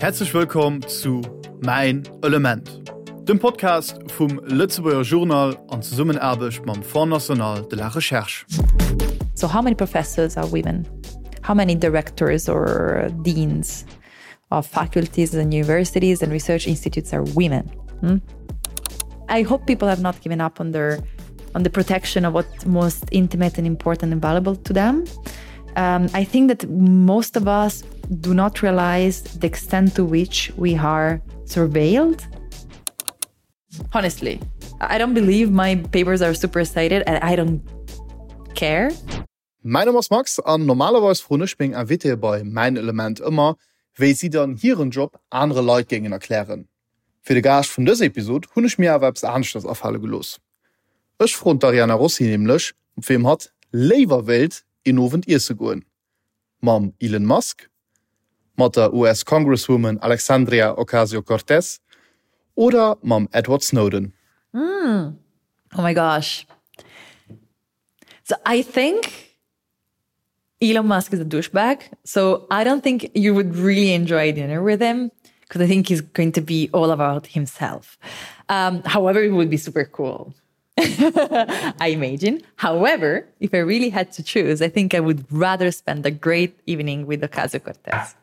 Häerzlech wëllkomm zu Mäin Element, dem Podcast vum Lëtzebuerger Journal an Zesummenaarbecht mam Fonds National de la Recherche. So how many professors are women? How many directors or deans of faculties and universities and research institutes are women? Hmm? I hope people have not given up on their on the protection of what's most intimate and important and valuable to them. Um, I think that most of us do not realize the extent to which we are surveilled. Honestly, I don't believe my papers are super cited and I don't care. Mäin Numm ass Max an normalerweis froen ech meng Invitéë bei Mäin Element ëmmer, wéi si dann hiren Job anere Leit géingen erklären. Fir de Gaascht vun dëser Episod hunn ech mir awer eppes aneschters afale gelooss. Ech froen d'Ariana Rossi nämlech, mat weem hatt léiwer wéilt een Owend iesse goen, mam Elon Musk, mat der US-Congresswoman Alexandria Ocasio-Cortez oder mam Edward Snowden. Oh my gosh. So I think Elon Musk is a douchebag. So I don't think you would really enjoy dinner with him because I think he's going to be all about himself. Um, however, it would be super cool. I imagine. However, if I really had to choose, I think I would rather spend a great evening with Ocasio-Cortez.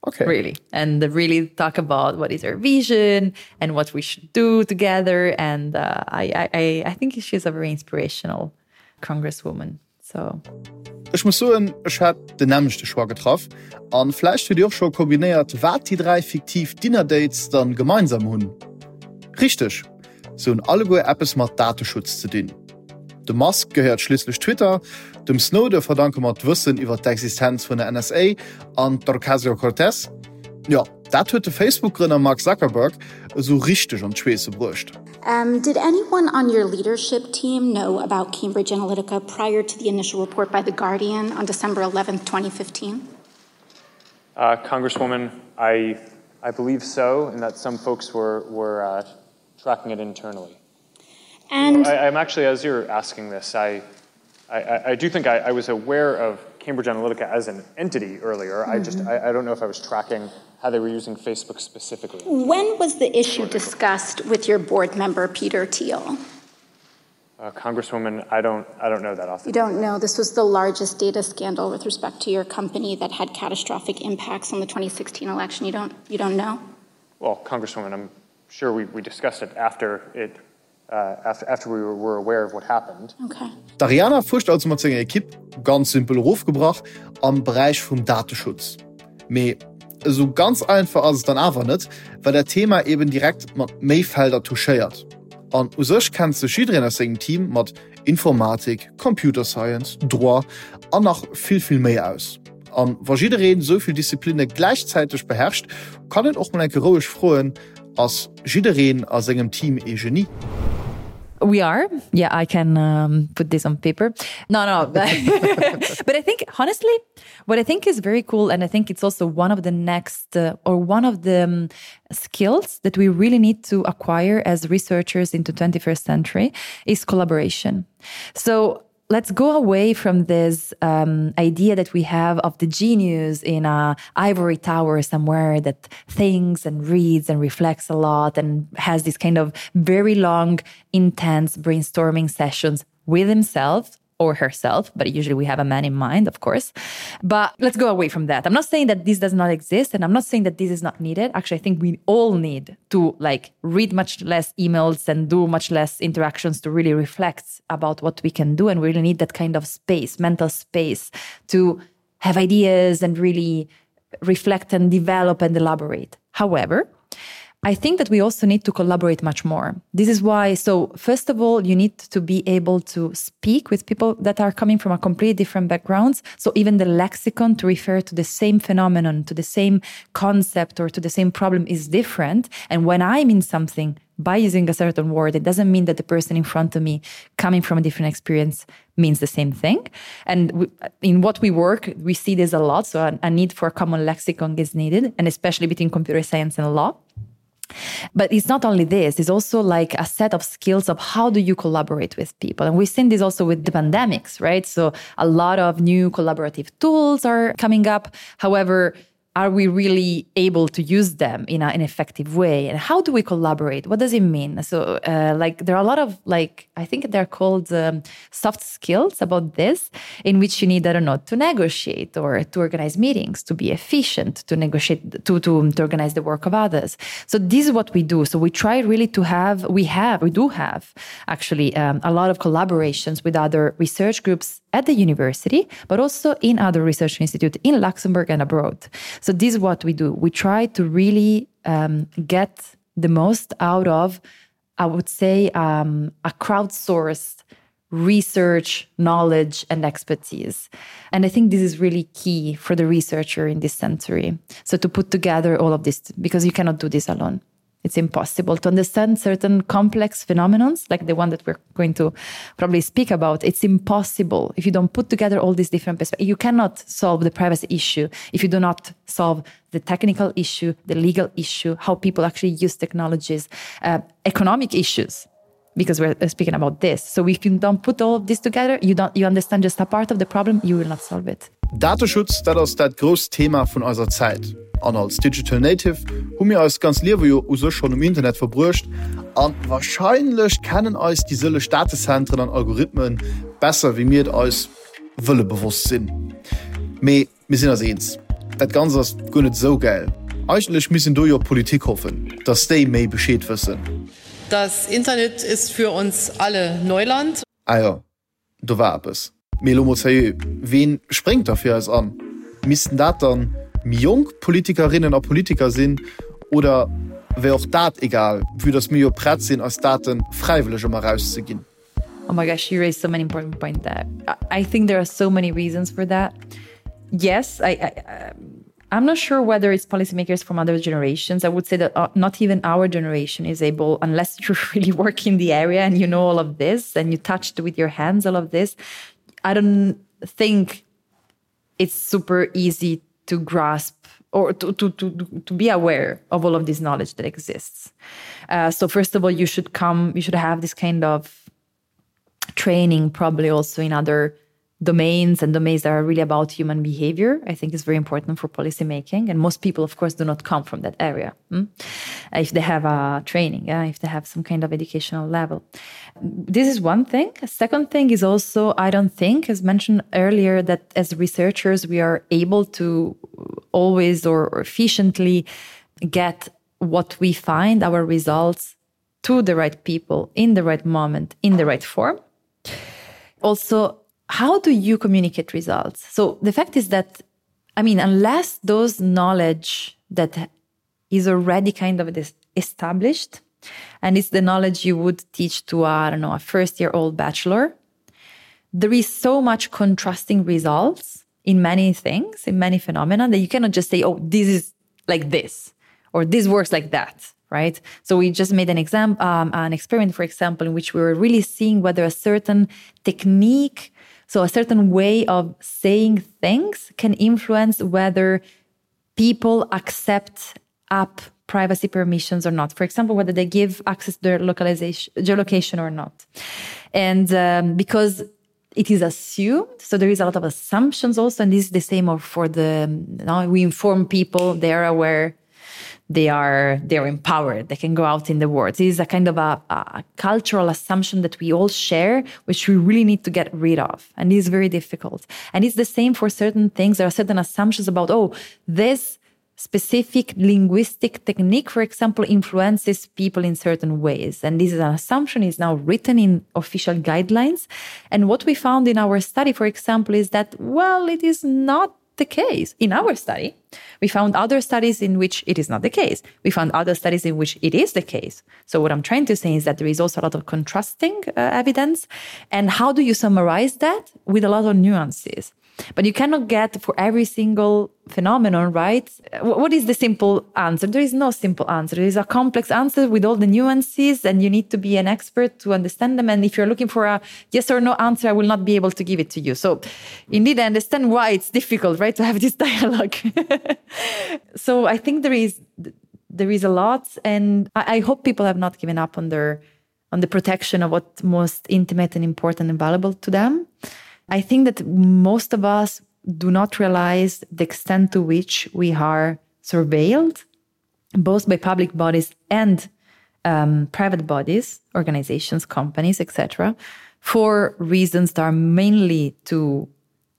Okay. Really. And really talk about what is our vision and what we should do together. And uh, I, I, I think she's a very inspirational congresswoman. So. Ech muss soen, ech hätt den nämmlechte Choix getraff. An vläicht hutt Dir och scho kombinéiert, wat déi 3 fiktiv Dinner Dates dann gemeinsam hunn. Richteg, se hunn alleguer eppes mat Dateschutz ze dinn. Dem Musk gehéiert schliisslech Twitter, dem Snowden verdanke mer d'Wëssen iwwer d'Existenz vun der NSA an d'Ocasio-Cortez, jo, dat huet de Facebook-Grënner Mark Zuckerberg esou richteg an d'Schweesse bruecht. Did anyone on your leadership team know about Cambridge Analytica prior to the initial report by The Guardian on December 11th, 2015? Uh, Congresswoman, I, I believe so, and that some folks were, were uh, tracking it internally. And I, I'm actually, as you're asking this, I, I, I do think I, I was aware of Cambridge Analytica as an entity earlier. Mm -hmm. I just, mm-hmm. I, I don't know if I was tracking how they were using Facebook specifically. When was the issue discussed with your board member, Peter Thiel? Uh, Congresswoman, I don't, I don't know that off You don't know. This was the largest data scandal with respect to your company that had catastrophic impacts on the 2016 election. You don't, you don't know? Well, Congresswoman, I'm sure we, we discussed it after it uh, after, after we were aware of what happened. Okay. D'Ariana fuerscht also mat senger Ekipp, ganz simpel erofgebrach, am Beräich vum Dateschutz. Mee esou ganz einfach ass et dann awer net, well dat Thema eben direkt mat méi Felder touchéiert. An u sech kennt sech jiddereen aus sengem Team mat Informatik, Computer Science, Droit an nach vill, vill méi aus. An wa jiddereen esou vill Disziplinne gläichzäiteg beherrscht, kann een och mol eng Kéier roueg froen, Ass jiddereen a sengem Team ee Genie? We are. Yeah, I can um, put this on paper. No, no. But I think, honestly, what I think is very cool, and I think it's also one of the next uh, or one of the um, skills that we really need to acquire as researchers into 21st century is collaboration. So let's go away from this um, idea that we have of the genius in a ivory tower somewhere that thinks and reads and reflects a lot and has this kind of very long, intense brainstorming sessions with himself or herself, but usually we have a man in mind, of course. But let's go away from that. I'm not saying that this does not exist and I'm not saying that this is not needed. Actually, I think we all need to like read much less emails and do much less interactions to really reflect about what we can do and we really need that kind of space, mental space to have ideas and really reflect and develop and elaborate. However, I think that we also need to collaborate much more. This is why, so first of all, you need to be able to speak with people that are coming from a completely different backgrounds. So even the lexicon to refer to the same phenomenon, to the same concept or to the same problem is different. And when I mean something by using a certain word, it doesn't mean that the person in front of me coming from a different experience means the same thing. And we, in what we work, we see this a lot. So a, a need for a common lexicon is needed, and especially between computer science and law. But it's not only this, it's also like a set of skills of how do you collaborate with people. And we've seen this also with the pandemics, right? So a lot of new collaborative tools are coming up. However, Are we really able to use them in a, an effective way? And how do we collaborate? What does it mean? So uh, like there are a lot of like I think they're called um, soft skills about this, in which you need, I don't know, to negotiate or to organize meetings, to be efficient, to negotiate, to, to, to organize the work of others. So this is what we do. So we try really to have, we have, we do have actually um, a lot of collaborations with other research groups at the university, but also in other research institutes in Luxembourg and abroad. So this is what we do. We try to really um, get the most out of, I would say, um, a crowdsourced research, knowledge, and expertise. And I think this is really key for the researcher in this century. So to put together all of this, because you cannot do this alone. It's impossible to understand certain complex phenomenons like the one that we're going to probably speak about. It's impossible if you don't put together all these different perspectives. You cannot solve the privacy issue if you do not solve the technical issue, the legal issue, how people actually use technologies, uh, economic issues because we're uh, speaking about this. So if you don't put all of this together, you don't you understand just a part of the problem, you will not solve it. Dateschutz, dat ass dat grousst Thema vun eiser Zäit. An als Digital Native hu mir eist ganz Liewe jo u sech schonn um Internet verbruecht a warscheinlech kennen eis déi sëlleg Datezentren an Algorithmen besser wéi mir et eis wëlle bewosst sinn. Mee mir sinn eis eens, dat Ganzt ass guer net esou gäil. Eigentlech misst een do jo op d'Politik hoffen, dass déi méi Bescheed wëssen. Das Internet ist für uns alle Neuland. Ah jo, do war eppes. Mee elo mol sérieux, ween spréngt da fir eis an? Missten dat dann méi jonk Politikerinnen a Politiker sinn oder wär och dat egal, vue dass mir jo prett sinn eis Daten fräiwëlleg ëmmer erauszeginn? Oh my gosh, you raised so many important points there. I think there are so many reasons for that. Yes, I, I um, I'm not sure whether it's policymakers from other generations. I would say that uh, not even our generation is able, unless you really work in the area and you know all of this and you touched with your hands all of this. I don't think it's super easy to grasp or to, to, to, to be aware of all of this knowledge that exists. Uh, so first of all, you should come, you should have this kind of training probably also in other domains and domains that are really about human behavior, I think is very important for policymaking. And most people, of course, do not come from that area. Hmm? If they have a training, yeah, if they have some kind of educational level. This is one thing. Second thing is also, I don't think, as mentioned earlier, that as researchers, we are able to always or, or efficiently get what we find, our results to the right people in the right moment, in the right form. Also, how do you communicate results? So the fact is that, I mean, unless those knowledge that is already kind of this established, and it's the knowledge you would teach to, I don't know, a first year old bachelor, there is so much contrasting results in many things, in many phenomena that you cannot just say, oh, this is like this, or this works like that right? So we just made an exam, um, an experiment, for example, in which we were really seeing whether a certain technique, so a certain way of saying things can influence whether people accept app privacy permissions or not. For example, whether they give access to their localization, geolocation or not. And um, because it is assumed, so there is a lot of assumptions also, and this is the same for the, you know, we inform people, they are aware, they are they are empowered they can go out in the world this is a kind of a, a cultural assumption that we all share which we really need to get rid of and is very difficult and it's the same for certain things there are certain assumptions about oh this specific linguistic technique for example influences people in certain ways and this is an assumption is now written in official guidelines and what we found in our study for example is that well it is not the case in our study we found other studies in which it is not the case we found other studies in which it is the case so what I'm trying to say is that there is also a lot of contrasting uh, evidence and how do you summarize that with a lot of nuances but you cannot get for every single phenomenon right what is the simple answer there is no simple answer there is a complex answer with all the nuances and you need to be an expert to understand them and if you're looking for a yes or no answer I will not be able to give it to you so indeed I understand why it's difficult right to have this dialogue so I think there is there is a lot and I, I hope people have not given up on their on the protection of what most intimate and important and valuable to them I think that most of us do not realize the extent to which we are surveilled, both by public bodies and um, private bodies, organizations, companies, etc., for reasons that are mainly to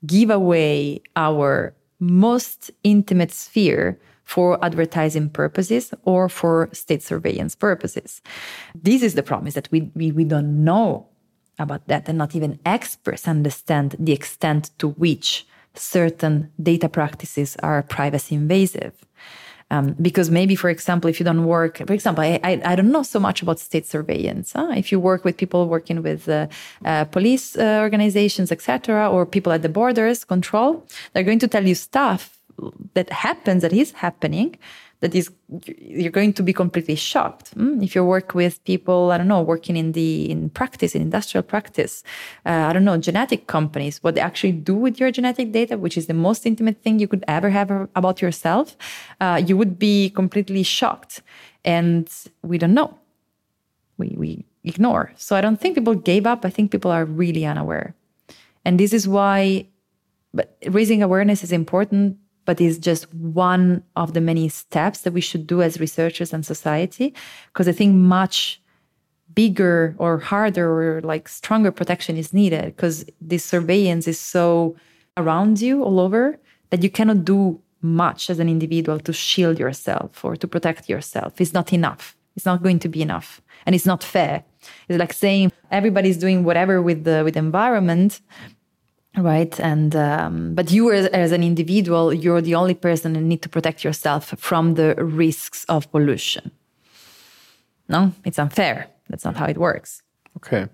give away our most intimate sphere for advertising purposes or for state surveillance purposes. This is the promise that we, we, we don't know about that and not even experts understand the extent to which certain data practices are privacy invasive. Um, because maybe, for example, if you don't work, for example, I, I, I don't know so much about state surveillance. Huh? If you work with people working with uh, uh, police uh, organizations, etc., or people at the borders control, they're going to tell you stuff that happens, that is happening, that is you're going to be completely shocked mm? if you work with people I don't know working in the in practice in industrial practice uh, I don't know genetic companies what they actually do with your genetic data which is the most intimate thing you could ever have about yourself uh, you would be completely shocked and we don't know we we ignore so I don't think people gave up I think people are really unaware and this is why but raising awareness is important but is just one of the many steps that we should do as researchers and society because I think much bigger or harder or like stronger protection is needed because this surveillance is so around you all over that you cannot do much as an individual to shield yourself or to protect yourself it's not enough it's not going to be enough and it's not fair it's like saying everybody's doing whatever with the with the environment right and um, but you as, as an individual you're the only person who need to protect yourself from the risks of pollution no it's unfair that's not how it works okay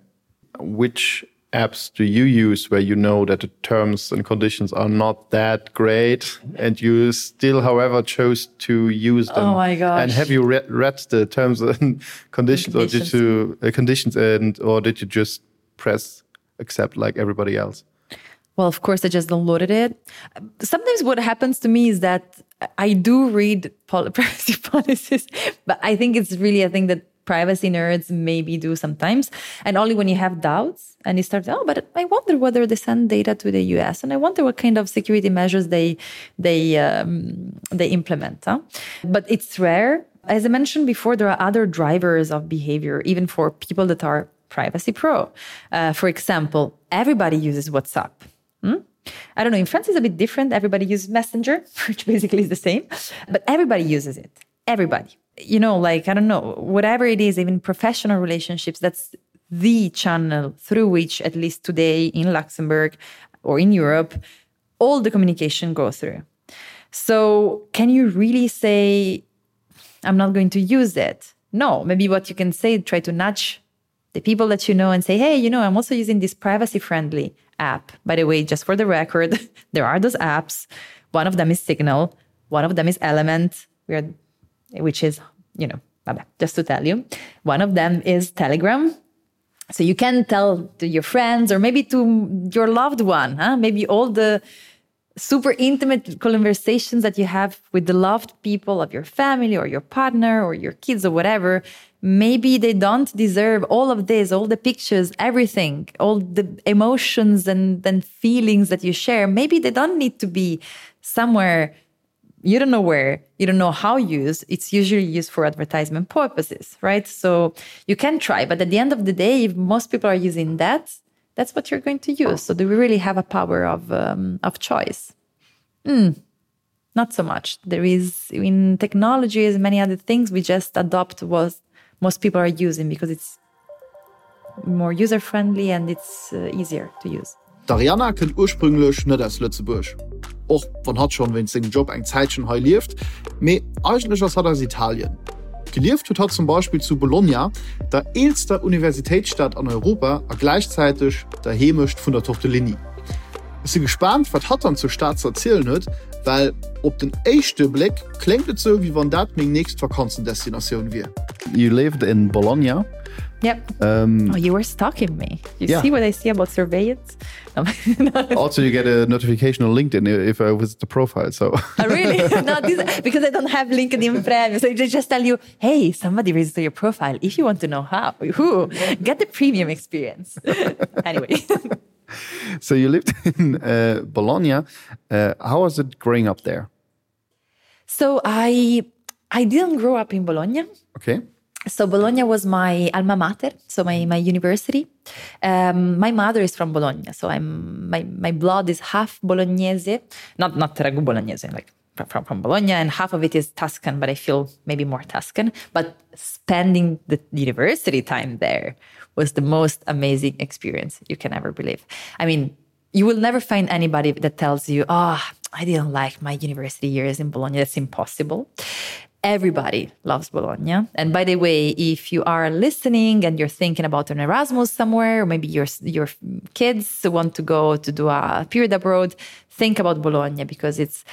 which apps do you use where you know that the terms and conditions are not that great and you still however chose to use them oh my gosh. and have you re read the terms and conditions, conditions or did you uh, conditions and or did you just press accept like everybody else Well, of course, I just downloaded it. Sometimes what happens to me is that I do read privacy policies, but I think it's really a thing that privacy nerds maybe do sometimes. And only when you have doubts and you start, oh, but I wonder whether they send data to the US and I wonder what kind of security measures they, they, um, they implement. Huh? But it's rare. As I mentioned before, there are other drivers of behavior, even for people that are privacy pro. Uh, for example, everybody uses WhatsApp. Hmm? I don't know, in France it's a bit different. Everybody uses Messenger, which basically is the same, but everybody uses it. Everybody. You know, like, I don't know, whatever it is, even professional relationships, that's the channel through which, at least today in Luxembourg or in Europe, all the communication goes through. So can you really say, I'm not going to use it? No, maybe what you can say, try to nudge the people that you know and say, hey, you know, I'm also using this privacy friendly app. By the way, just for the record, there are those apps. One of them is Signal, one of them is Element, we are, which is, you know, just to tell you. One of them is Telegram. So you can tell to your friends or maybe to your loved one, huh? maybe all the super intimate conversations that you have with the loved people of your family or your partner or your kids or whatever, maybe they don't deserve all of this, all the pictures, everything, all the emotions and, and feelings that you share. Maybe they don't need to be somewhere you don't know where, you don't know how used. It's usually used for advertisement purposes, right? So you can try, but at the end of the day, if most people are using that, that's what you're going to use. So do we really have a power of, um, of choice? Mm, not so much. There is in technology as many other things, we just adopt what most people are using because it's more user friendly and it's uh, easier to use. D'Arianna kënnt ursprünglech net aus Lëtzebuerg, och wann hatt schonn wéinst sengem Job eng Zäitchen hei lieft, mee eigentlech ass hatt aus Italien. Gelieft huet hatt zum Beispill zu Bologna, der eelster Universitéitsstad an Europa a gläichzäiteg der Heemecht vun der Tortellini. Ech si gespaant, wat hatt dann zur Stad ze erzielen huet, well op den éischte Bléck kléngt et sou, wéi wann dat meng nächst Vakanzendestinatioun wier. You lived in Bologna. Yep. Um, oh, you were stalking me. You yeah. see what I see about surveillance? No. also, you get a notification on LinkedIn if I visit the profile. So oh, really? no, this, because I don't have LinkedIn Premium. So they just tell you, hey, somebody visited your profile. If you want to know how, who, get the premium experience. anyway. So you lived in uh, Bologna. Uh, how was it growing up there? So I I didn't grow up in Bologna. Okay. So Bologna was my alma mater, so my, my university. Um, my mother is from Bologna, so I'm my, my blood is half Bolognese, not not ragu Bolognese, like from, from Bologna, and half of it is Tuscan, but I feel maybe more Tuscan. But spending the university time there was the most amazing experience you can ever believe. I mean, you will never find anybody that tells you, oh, I didn't like my university years in Bologna. That's impossible. Everybody loves Bologna. And by the way, if you are listening and you're thinking about an Erasmus somewhere, or maybe your, your kids want to go to do a period abroad, think about Bologna because it's,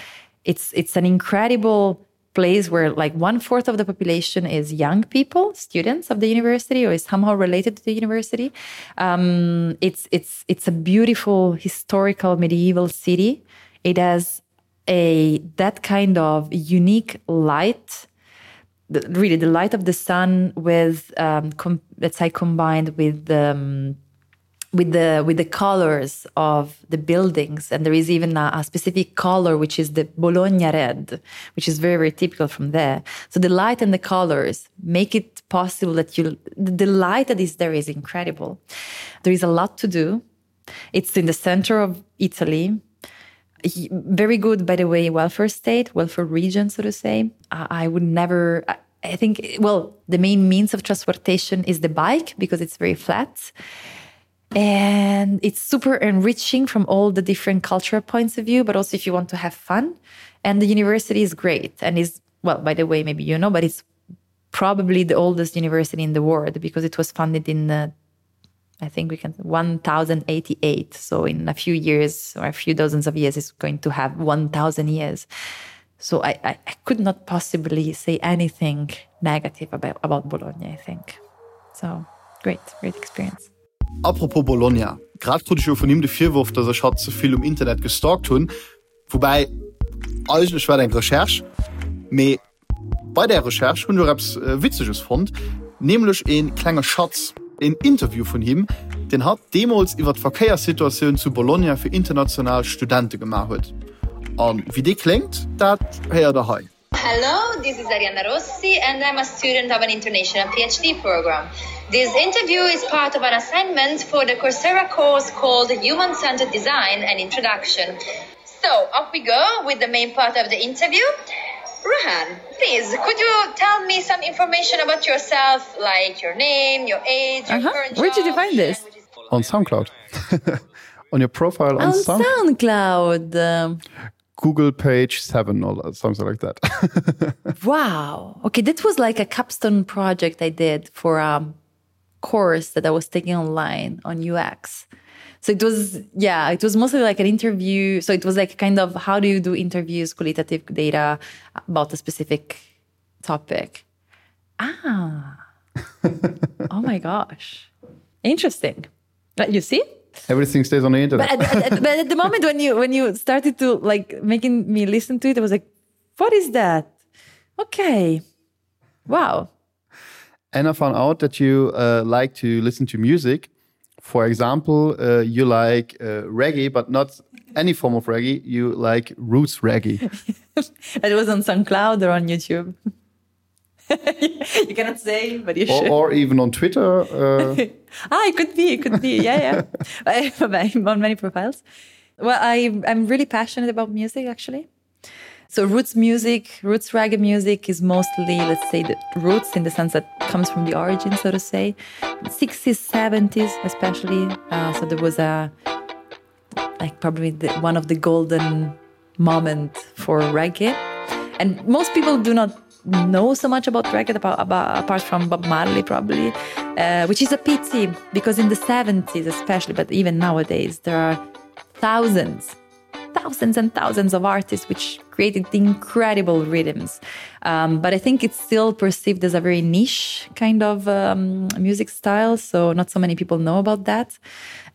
it's, it's an incredible place where like one fourth of the population is young people, students of the university or is somehow related to the university. Um, it's, it's, it's a beautiful historical medieval city. It has a that kind of unique light, the, really the light of the sun with um, com let's say combined with the um, with the with the colors of the buildings and there is even a, a specific color which is the Bologna red which is very very typical from there so the light and the colors make it possible that you the light that is there is incredible there is a lot to do it's in the center of Italy very good by the way welfare state welfare region so to say I, I would never I, I think well the main means of transportation is the bike because it's very flat and it's super enriching from all the different cultural points of view but also if you want to have fun and the university is great and is well by the way maybe you know but it's probably the oldest university in the world because it was funded in the I think we can 1088 so in a few years or a few dozens of years is going to have 1000 years so I, I, I could not possibly say anything negative about about Bologna I think so great great experience. Apropos Bologna, grad krut ech jo vun him de Virworf, dass ech hatt ze vill um Internet gestalkt hunn. Woubäi, eigentlech war et eng Recherche. Mee bei där Recherche hunn ech och eppes Witzeges fonnt, nämlech e klenge Schatz, een Interview vun him, deen hatt deemools iwwer d'Verkéierssituatioun zu Bologna fir international Studente gemaach huet. A wéi dee kléngt, dat héiert der hei. Hello, this is Arianna Rossi and I'm a student of an international PhD program. This interview is part of an assignment for the Coursera course called Human-Centered Design and Introduction. So up we go with the main part of the interview. Rohan, please, could you tell me some information about yourself, like your name, your age, your uh -huh. current Where did you find this? On SoundCloud. on your profile on, on Sound SoundCloud. Google page 7 or something like that. wow. Okay, that was like a capstone project I did for a course that I was taking online on UX. So it was yeah, it was mostly like an interview. So it was like kind of how do you do interviews, qualitative data about a specific topic. Ah. oh my gosh. Interesting. But you see? Everything stays on the internet. But at, at, but at the moment when you when you started to like making me listen to it, I was like, what is that? Okay. Wow. And I found out that you uh, like to listen to music. For example, uh, you like uh, reggae, but not any form of reggae. You like roots reggae. it was on SoundCloud or on YouTube. you cannot say, but you or, should. Or even on Twitter. Uh... ah, it could be, it could be. Yeah, yeah. I'm on many profiles. Well, I, I'm really passionate about music, actually. So roots music, roots reggae music is mostly, let's say, the roots in the sense that comes from the origin, so to say. 60s, 70s, especially. Uh, so there was a, like probably the, one of the golden moment for reggae. And most people do not know so much about reggae about, about, apart from Bob Marley probably, uh, which is a pity because in the 70s especially, but even nowadays there are thousands thousands and thousands of artists which created incredible rhythms. Um, but I think it's still perceived as a very niche kind of um, music style, so not so many people know about that.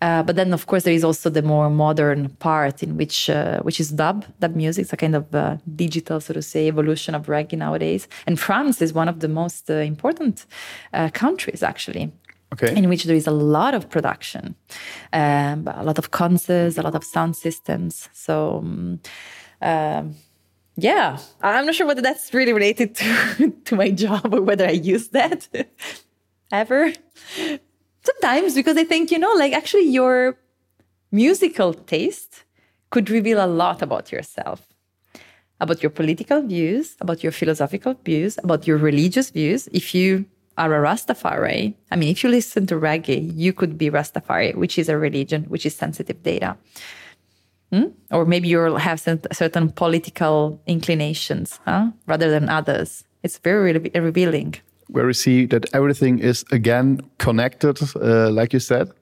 Uh, but then of course there is also the more modern part in which uh, which is dub dub music it's a kind of uh, digital so to say evolution of reggae nowadays and France is one of the most uh, important uh, countries actually. Okay. In which there is a lot of production, um, a lot of concerts, a lot of sound systems. So um, um, yeah, I'm not sure whether that's really related to, to my job or whether I use that ever. Sometimes because I think, you know, like actually your musical taste could reveal a lot about yourself about your political views, about your philosophical views, about your religious views. If you are a Rastafari, I mean, if you listen to reggae, you could be Rastafari, which is a religion, which is sensitive data. Hmm? Or maybe you'll have certain political inclinations huh? rather than others. It's very re revealing. Where we see that everything is again connected, uh, like you said.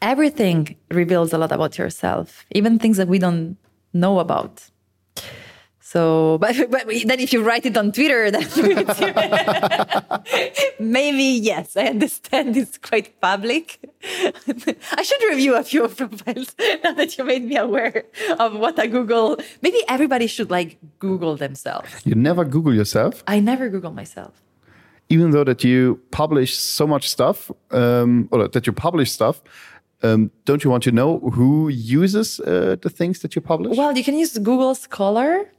Everything reveals a lot about yourself, even things that we don't know about. So but, but then if you write it on Twitter, then maybe yes, I understand it's quite public. I should review a few profiles now that you made me aware of what I Google. Maybe everybody should like Google themselves. You never Google yourself? I never Google myself. Even though that you publish so much stuff um, or that you publish stuff, um, don't you want to know who uses uh, the things that you publish? Well, you can use Google Scholar,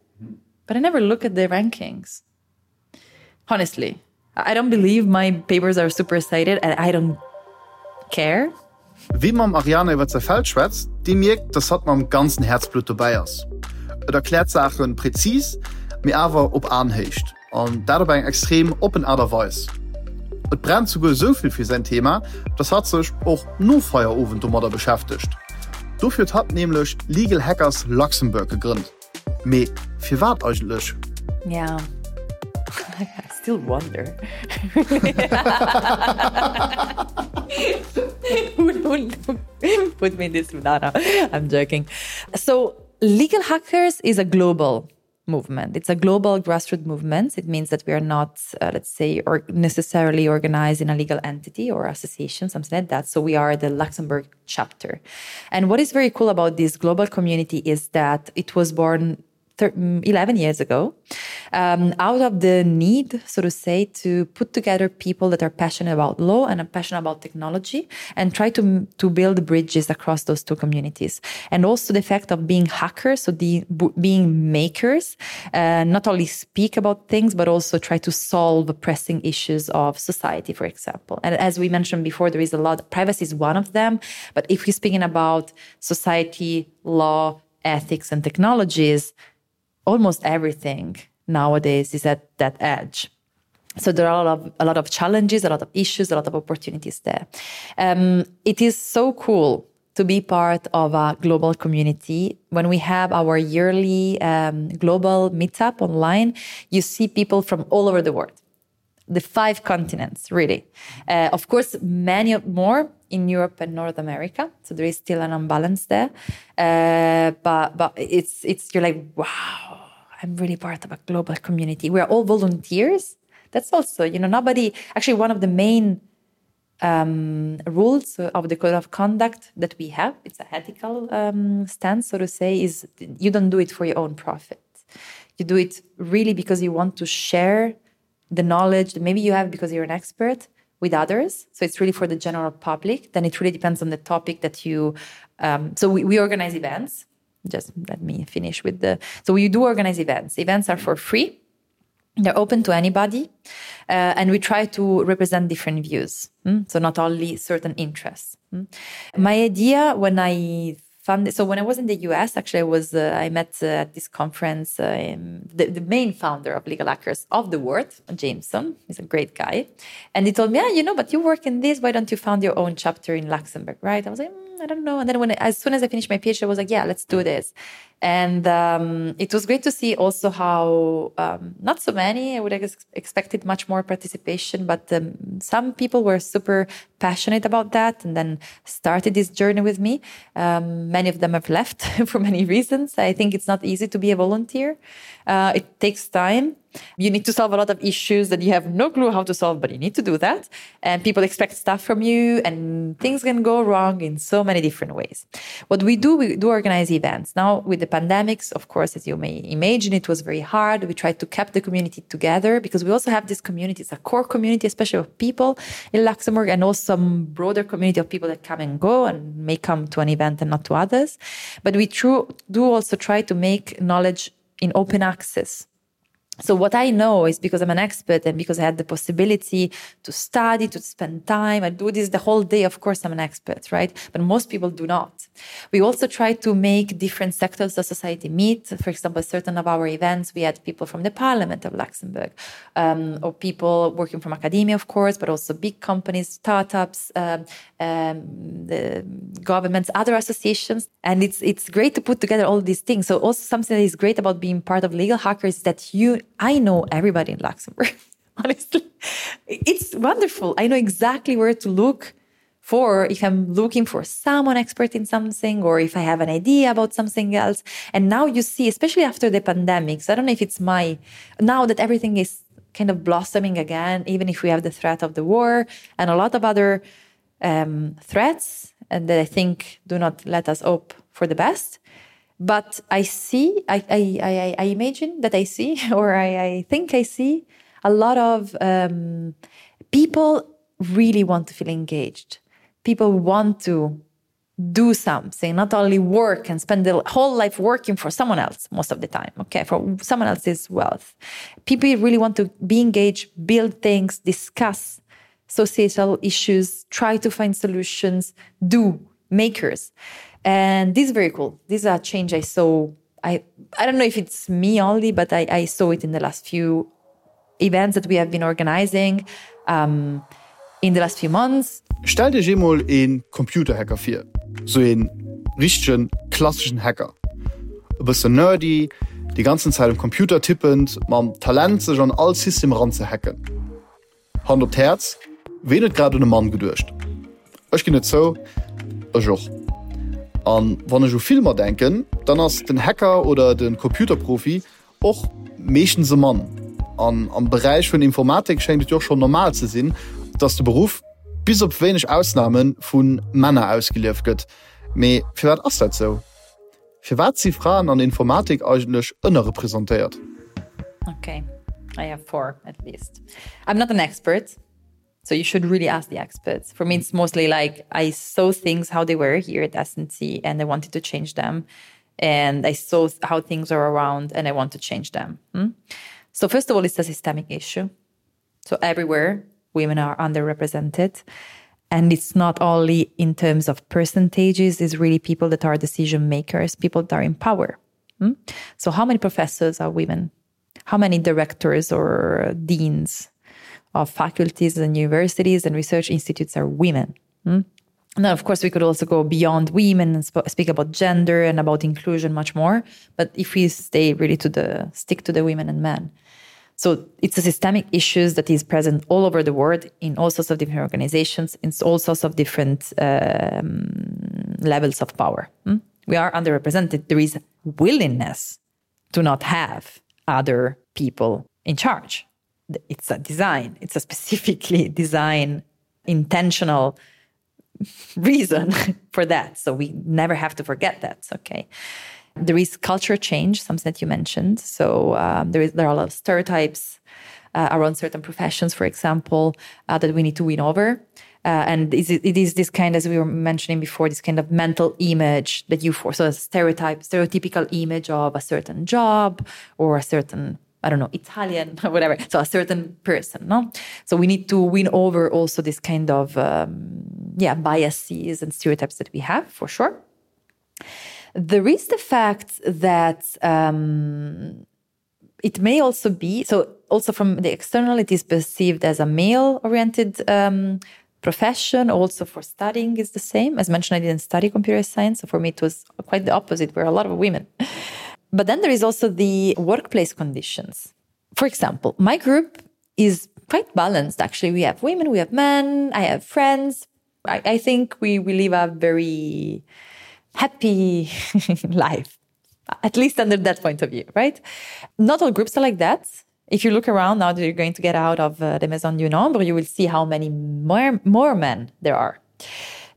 but I never look at the rankings. Honestly, I don't believe my papers are super cited and I don't care. Wie mam Ariane iwwer säi Feld schwätzt, dee mierkt, dass hatt mam ganzen Häerzblutt dobäi ass. Et erkläert Saache präzis, mee awer op Aenhéicht, an dat op eng extrem oppen Aart a Weis. Et brennt souguer esou vill fir säin Thema, dass hatt sech och no Feierowend domadder beschäftegt. Dofir huet hatt nämlech Legal Hackers Luxembourg gegrënnt. Mee firwat eigentlech? Yeah. I still wonder. who, who, who put me in this banana? I'm joking. So legal hackers is a global movement. It's a global grassroots movement. It means that we are not, uh, let's say, or necessarily organized in a legal entity or association, something like that. So we are the Luxembourg chapter. And what is very cool about this global community is that it was born 11 mm, years ago um, out of the need so to say to put together people that are passionate about law and are passionate about technology and try to to build bridges across those two communities and also the fact of being hackers so the being makers uh, not only speak about things but also try to solve pressing issues of society for example and as we mentioned before there is a lot privacy is one of them but if we're speaking about society law ethics and technologies almost everything nowadays is at that edge. So there are a lot of, a lot of challenges, a lot of issues, a lot of opportunities there. Um, it is so cool to be part of a global community. When we have our yearly um, global meetup online, you see people from all over the world the five continents really uh, of course many more in Europe and North America so there is still an imbalance there uh, but but it's it's you're like wow I'm really part of a global community we are all volunteers that's also you know nobody actually one of the main um, rules of the code of conduct that we have it's a ethical um, stance so to say is you don't do it for your own profit you do it really because you want to share the knowledge that maybe you have because you're an expert with others so it's really for the general public then it really depends on the topic that you um, so we, we organize events just let me finish with the so we do organize events events are for free they're open to anybody uh, and we try to represent different views mm? so not only certain interests mm? my idea when I found so when I was in the US actually I was uh, I met uh, at this conference uh, the, the main founder of legal hackers of the world Jameson he's a great guy and he told me yeah you know but you work in this why don't you found your own chapter in Luxembourg right I was like mm, I don't know and then when as soon as I finished my PhD I was like yeah let's do this and um, it was great to see also how um, not so many I would have ex expected much more participation but um, some people were super passionate about that and then started this journey with me um, many of them have left for many reasons I think it's not easy to be a volunteer uh, it takes time. You need to solve a lot of issues that you have no clue how to solve, but you need to do that. And people expect stuff from you and things can go wrong in so many different ways. What we do, we do organize events. Now with the pandemics, of course, as you may imagine, it was very hard. We tried to keep the community together because we also have this community, it's a core community, especially of people in Luxembourg and also some broader community of people that come and go and may come to an event and not to others. But we true, do also try to make knowledge in open access. So what I know is because I'm an expert and because I had the possibility to study, to spend time, I do this the whole day, of course I'm an expert, right? But most people do not. We also try to make different sectors of society meet. For example, certain of our events, we had people from the Parliament of Luxembourg, um, or people working from academia, of course, but also big companies, startups, um, um, the governments, other associations. And it's, it's great to put together all these things. So also something that is great about being part of Legal Hackers is that you I know everybody in Luxembourg. Honestly, it's wonderful. I know exactly where to look for if I'm looking for someone expert in something or if I have an idea about something else. And now you see, especially after the pandemic, so I don't know if it's my now that everything is kind of blossoming again, even if we have the threat of the war and a lot of other um, threats and that I think do not let us hope for the best. But I see, I, I, I, I imagine that I see, or I, I think I see a lot of um, people really want to feel engaged. People want to do something, not only work and spend their whole life working for someone else most of the time, okay, for someone else's wealth. People really want to be engaged, build things, discuss societal issues, try to find solutions, do makers. And this is very cool. This is a change I saw. I, I don't know if it's me only, but I, I saw it in the last few events that we have been organizing um, in the last few months. Stellt Iech eemol een Computerhacker vir, sou een richtegen klasseschen Hacker. E bëssen nerdy, déi ganzen Zäit um Computer tippend, mam Talent sech an all System eran ze hacken. Hand op d'Häerz, ween huet grad un e Mann geduecht? Ech ginn et zou, ech och. An wann ech u Filmer denken, dann ass den Hacker oder de Computerprofi och meeschtens e Mann. An am Beräich vun Informatik schéngt et jo och schonn normal ze sinn, dass de Beruff, bis op wéineg Ausname, vu Männer ausgelieft gëtt. Mee firwat ass dat sou? Firwat si Fraen an der Informatik eigentlech ënnerrepresentéiert? Okay, I have four at least. I'm not an expert, so you should really ask the experts. For me, it's mostly like I saw things how they were here at SNC and I wanted to change them. And I saw how things are around and I want to change them. Hmm? So first of all, it's a systemic issue. So everywhere women are underrepresented. And it's not only in terms of percentages, it's really people that are decision makers, people that are in power. Hmm? So how many professors are women? How many directors or deans of faculties and universities and research institutes are women? Hmm? Now, of course, we could also go beyond women and sp speak about gender and about inclusion much more. But if we stay really to the stick to the women and men. So it's a systemic issues that is present all over the world in all sorts of different organizations, in all sorts of different um, levels of power. Hmm? We are underrepresented. There is willingness to not have other people in charge. It's a design. It's a specifically design intentional reason for that. So we never have to forget that. Okay. There is culture change, something that you mentioned. So um, there is there are a lot of stereotypes uh, around certain professions, for example, uh, that we need to win over. Uh, and is it, it is this kind, as we were mentioning before, this kind of mental image that you force, so a stereotype, stereotypical image of a certain job or a certain I don't know, Italian or whatever. So a certain person, no? So we need to win over also this kind of um, yeah, biases and stereotypes that we have for sure. There is the fact that um, it may also be so also from the external it is perceived as a male oriented um, profession also for studying is the same as mentioned I didn't study computer science so for me it was quite the opposite where a lot of women but then there is also the workplace conditions for example my group is quite balanced actually we have women we have men I have friends I, I think we we live a very happy life at least under that point of view right not all groups are like that. If you look around now that you're going to get out of uh, the Maison du Nombre, you will see how many more, more men there are.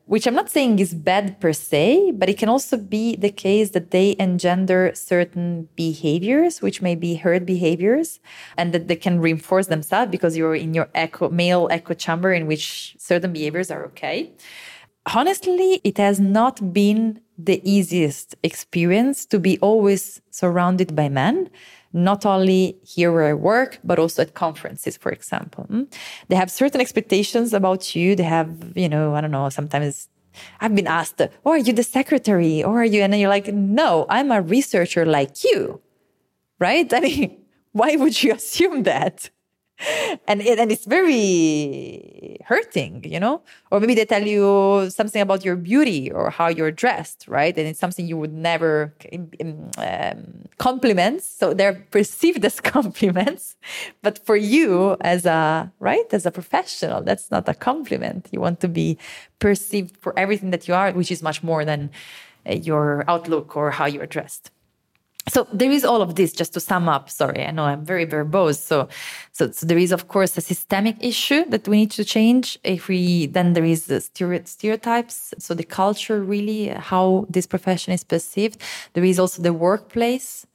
Which I'm not saying is bad per se, but it can also be the case that they engender certain behaviors, which may be herd behaviors, and that they can reinforce themselves because you're in your echo, male echo chamber in which certain behaviors are okay. Honestly, it has not been the easiest experience to be always surrounded by men not only here where I work, but also at conferences, for example. Hmm? They have certain expectations about you. They have, you know, I don't know, sometimes I've been asked, oh, are you the secretary? Or are you? And then you're like, no, I'm a researcher like you, right? I mean, why would you assume that? and it, and it's very hurting you know or maybe they tell you something about your beauty or how you're dressed right and it's something you would never um, compliments so they're perceived as compliments but for you as a right as a professional that's not a compliment you want to be perceived for everything that you are which is much more than uh, your outlook or how you're dressed so there is all of this just to sum up sorry i know i'm very verbose so so, so there is of course a systemic issue that we need to change if we then there is the stereotypes so the culture really how this profession is perceived there is also the workplace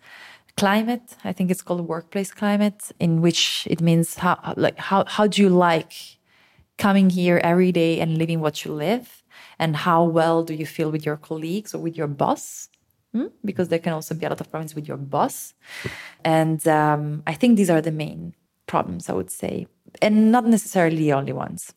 climate i think it's called workplace climate in which it means how like how how do you like coming here every day and living what you live and how well do you feel with your colleagues or with your boss Hmm? because there can also be a lot of problems with your boss. And um, I think these are the main problems, I would say, and not necessarily the only ones.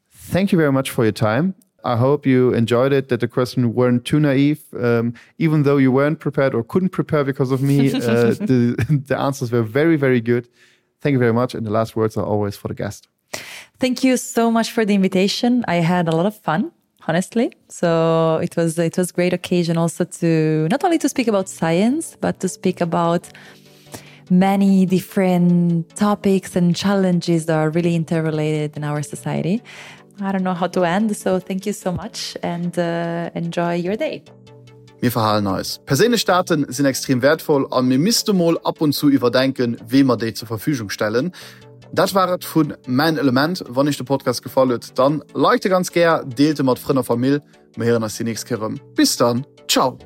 Thank you very much for your time. I hope you enjoyed it, that the questions weren't too naive. Um, even though you weren't prepared or couldn't prepare because of me, uh, the, the answers were very, very good. Thank you very much. And the last words are always for the guest. Thank you so much for the invitation. I had a lot of fun honestly so it was it was great occasion also to not only to speak about science but to speak about many different topics and challenges that are really interrelated in our society I don't know how to end so thank you so much and uh, enjoy your day Mir verhalen eis. Perséinlech Daten sinn extrem wäertvoll a mir misste mol ab und zu iwwerdenken, weem mer déi zur Verfügung stellen. Dat war et vu Mäin Element. Wann iech de Podcast gefall huet, dann liked e ganz gär, deelt e mat Frënn a Famill. Mir héieren eis déi nächst Kéier erëm. Bis dann, ciao!